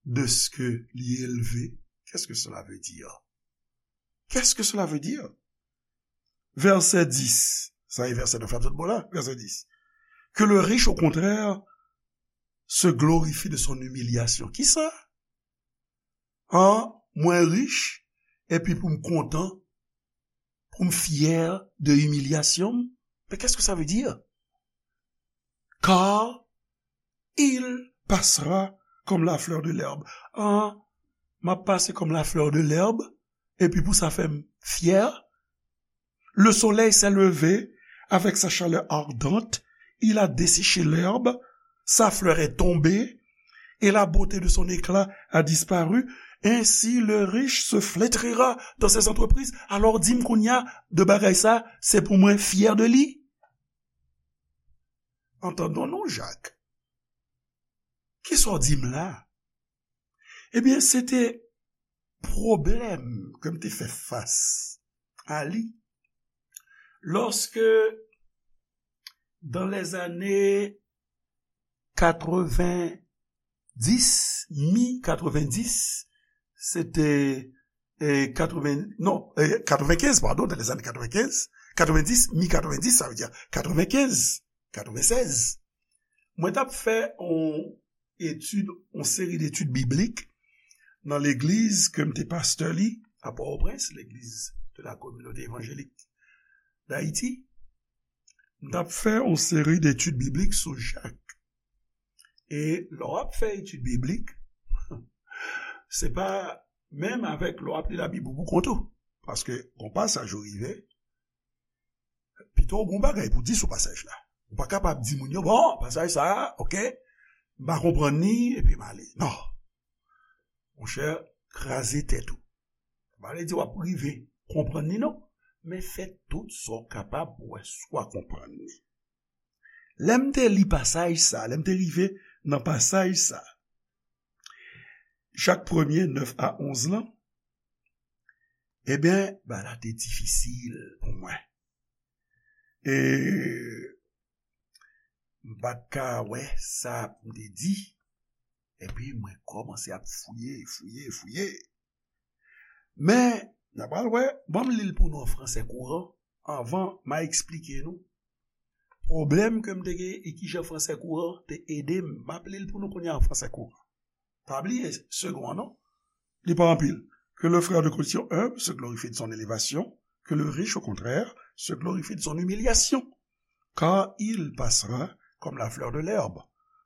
de ce que li elve? Qu'est-ce que cela veut dire? Qu'est-ce que cela veut dire? Vèsè dis, sa e vèsè nèf la, m sot bò la, vèsè dis. Que le riche, au contraire, se glorifie de son humiliation. Kisa? An, mwen rich, epi pou m kontan, pou m fyè de imilyasyon m? Mais qu'est-ce que ça veut dire? Car il passera comme la fleur de l'herbe. An, m ap pase kòm la fleur de l'herbe, epi pou sa fè m fyè? Le soleil s'est levé avec sa chaleur ardente, il a desséché l'herbe, sa fleur est tombée, et la beauté de son éclat a disparu. Ainsi le riche se flétrira dans ses entreprises. Alò, di m kounye a, de bagay sa, se pou mwen fyè de li? Antandon non, Jak. Kisa w di m la? Ebyen, se te pwoblèm ke m te fè fas a li lòske, dans les années quatre-vingt-dix, mi quatre-vingt-dix, se te, e, katreven, non, e, katrevenkenz, padon, dans les années quatre-vingt-quinze, quatre-vingt-dix, mi katrevenndis, sa vle di katrevenkenz. katrevennsèz, mwen t ap fè yon etid, yon seri detid biblik nan legliz ke m te pastè li a Pòtoprens, L'église de la Communauté Évangélique d'Haïti. M t ap fè yon seri detid biblik sou Jak. E lè w ap fè etid biblik, se pa menm avèk lè w ap li Labib ou pou kont ou. Paske gon pasaj ou rive, pito w gon bagay pou di sou pasaj la. Ou pa kapab di moun yo, bon, pasaj sa a, oke, m pa konprann li, epi m ale. Non. Monchè, kraze tèt ou. Sa pa vle di w ap rive konprann li, non. Men fè tout sa w kapab pou w wè si w a konprann li. Lè m te li pasaj sa, lè m te rive nan pasaj sa, Jak premye, nèf a onz lan, ebyen, bagay la te difisil pou mwen. E m pa t ka wè sa pou m te di. Epi mwen kòmanse ap fouye, fouye, fouye. Men, n a pral wè, ban m li l pou nou an fransè kouran, anvan m a eksplike nou pwoblèm ke m te gen e kijan fransè kouran te ede m. M ap li l pou nou kounye a an fransè kouran. Pa bliye, segon an, non? Li pa anpil. Que le frère de condition humble se glorifie de son élévation, que le riche, au contraire, se glorifie de son humiliation. Car il passera comme la fleur de l'herbe.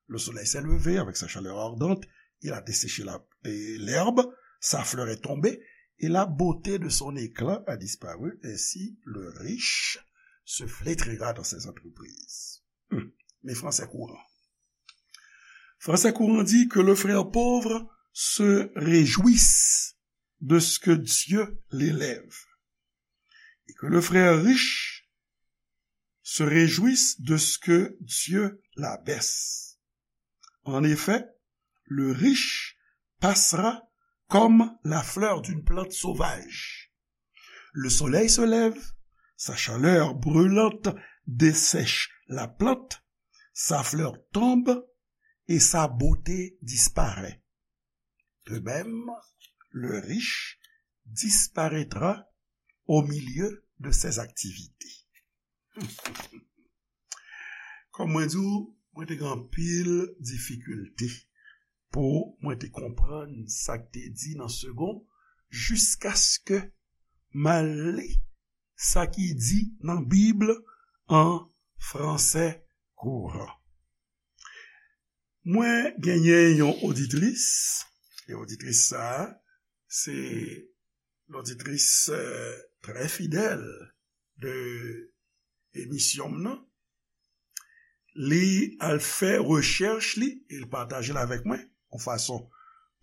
Le soleil s'est levé avec sa chaleur ardente, il a desséché la, et l'herbe, sa fleur est tombée, et la beauté de son éclat a disparu. Ainsi, le riche se flétrira dans ses entreprises. Hmm. Men fransè kouran. Fransè kouran di que le frère pauvre se réjouisse de ce que Dieu l'élève et que le frère riche se réjouisse de ce que Dieu l'abaisse. En effet, le riche passera comme la fleur d'une plante sauvage. Le soleil se lève, sa chaleur brûlante dessèche la plante, sa fleur tombe et sa beauté disparaît. De même, le riche disparaîtra au milieu de ses activités. Kòm mwen di w, mwen te gen anpil difikilte pou mwen te konprann sa k te di nan segon, jiskaske m al li sa ki di nan Bib an fransè kouran. Mwen genyen yon oditris, e oditris sa a, se loditris, euh, trè fidèl de emisyon m nan. Li al fè rechèch li, e l pataje l avèk mwen, yon fason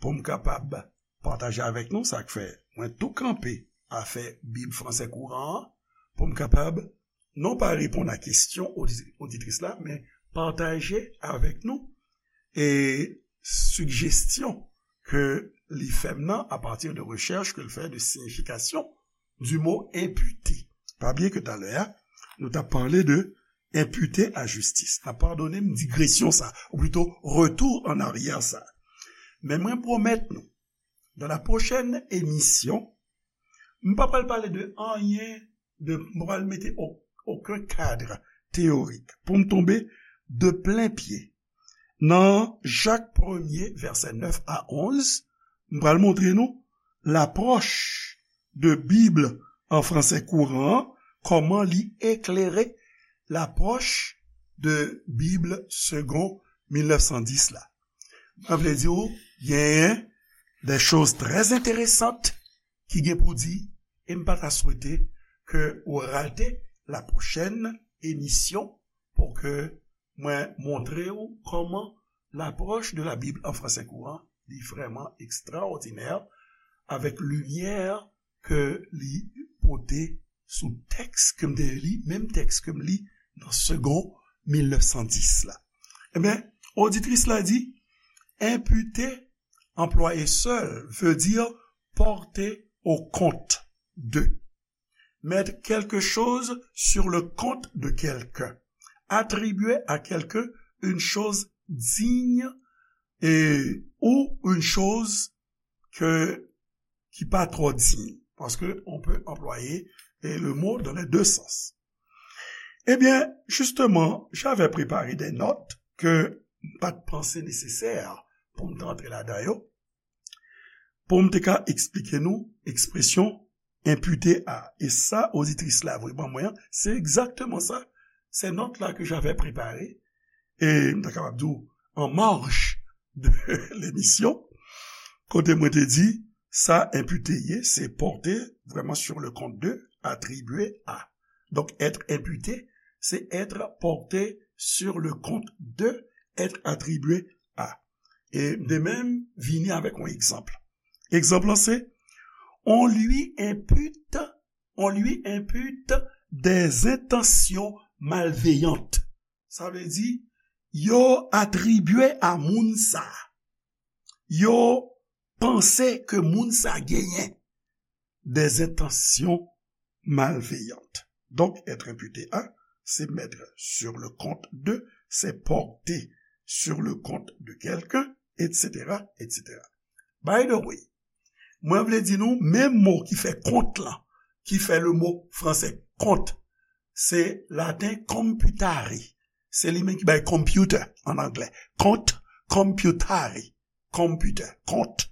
pou m kapab pataje avèk nou, sa k fè mwen tou kanpe afè Bib fransè kouran an, pou m kapab non pa reponn a kesyon odi-, oditris la, men pataje avèk nou e sijesyon ke li fè m nan apati de rechèch ke l fè de siyifikasyon du mot imputé. Pa bliye ke talè a, nou t ap pale de imputé à justice. N ap padone m digresyon sa, ou plito retour en arrière sa. Men mwen pwomèt nou, dans la prochaine émission, m pa pral pale de anyen, de, m pa pral mete o-, okenn kad teyorik pou m tonbe de plen pye nan Jak premye, vèsè nèf a onz, m pral montre nou lapwòch de Bib an fransè kouran an, kòman li eklere lapwòch de Bib segon mil nèf san dis la. Sa vle di w genyen de choz trè enteresan ki gen pou di, e m pa ta swete ke w rate la pwochèn emisyon pou ke mwen montre w kòman lapwòch de la Bib an fransè kouran li vrèman ekstraòdinè avèk limyè ke li pote sou tèks ke m te li, menm tèks ke m li nan segon mil nèf san dis la. Ebyen, oditris la di, imputer, employé seul, veut dire porter au compte de. Mettre quelque chose sur le compte de quelqu'un. Attribuer à quelqu'un une chose digne et, ou une chose que, qui pas trop digne. Parce que on peut employer, eh, le mot dans les deux sens. Ebyen, jisteman, j'avais préparé des notes ke m pa t panse nesesè pou m te antre ladan yo, pou m te ka eksplike nou ekspresyon enpite a. E sa, oditris la voye ban mwen an, se egzakteman sa. Se nòt la ke j'avais préparé, e m ta kapab di w, an marj de lemisyon, kote mwen te di, sa enpite ye, se porter vraiment sur le compte de, attribuer à. Donk, être imputé, se être porté sur le compte de, être attribué à. E m te menm vini avèk yon egzanp. Egzanp lan se, on lui impute, on lui impute des intentions malveillantes. Sa vle di, yo atribye a moun sa, yo panse ke moun sa genyen des intentions malveillantes. Donc, être imputé à, c'est mettre sur le compte de, c'est porter sur le compte de quelqu'un, et cetera, et cetera. By the way, mwen vle di nou, menm mo ki fè kont lan, ki fè le mo franse kont, se laten computare. Se li menm ki bay computer an anglè. Kont, computare. Computer, kont.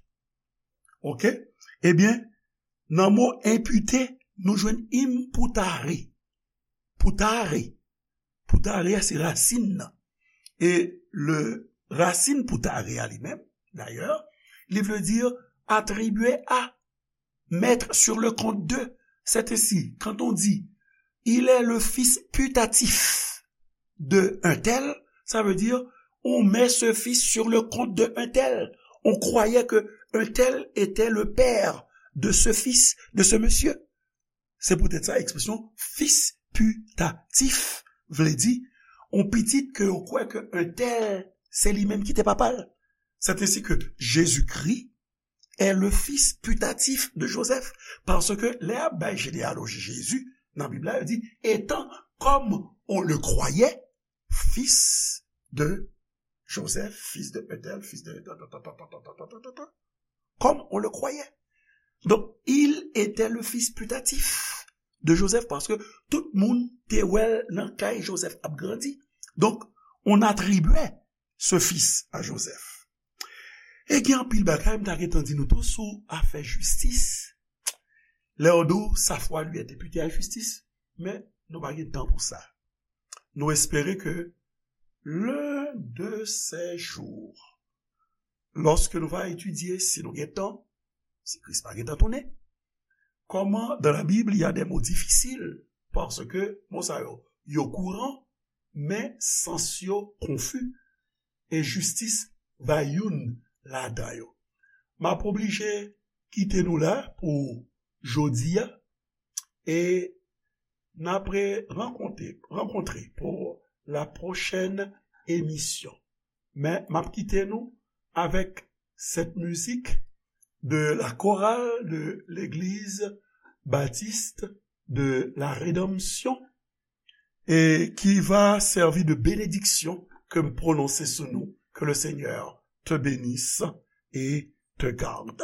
Oke? Ebyen, nan mo enpite, nou jwenn imputare. Putare. Putare a se rasin nan. E le rasin putare a li menm, dayè, li vle di atribye a, mettre sur le compte de. C'est ainsi, quand on dit, il est le fils putatif de un tel, ça veut dire, on met ce fils sur le compte de un tel. On croyait que un tel était le père de ce fils, de ce monsieur. Se poutèt sa, ekspresyon fis pitatif vle di, on pitit ke yo kwè ke entèl se li menm ki te papa l. C'est ainsi que Jésus-Christ est le fils putatif de Joseph. Paske lè y ap bay jeneyaloji Jezi, nan Bib la, yo di, étant, comme on le croyait, fils de Joseph, fils de un tel, fils de, comme on le croyait. Donc, il était le fils putatif de Joseph, paske tout moun te wè l nan kay Joseph ap grandi. Donc, on attribuait ce fils à Joseph. E gen anpil bagay m ta gentan di nou tou sou afè jistis. Lè yo di w sa fwa li est député à justice, men nou pa gen tan pou sa. Nou espere ke l'un de ces jours, lòske nou va etidye, si nou gen tan, si Kris pa gentan tounen, comment dans la Bible il y a des mots difficiles, paske mo sa yo, yo kouran, men sans yo konfi, e jistis va youn ladan yo. M ap oblije kite nou la pou jodi a, e n ap rankontre, rankontre pour la prochaine émission. Men m ap kite nou avèk cette musique de la chorale de l'église baptiste de la Rédemption et qui va servir de bénédiction que m prononse sou nou. Que le Seigneur te bénisse et te garde.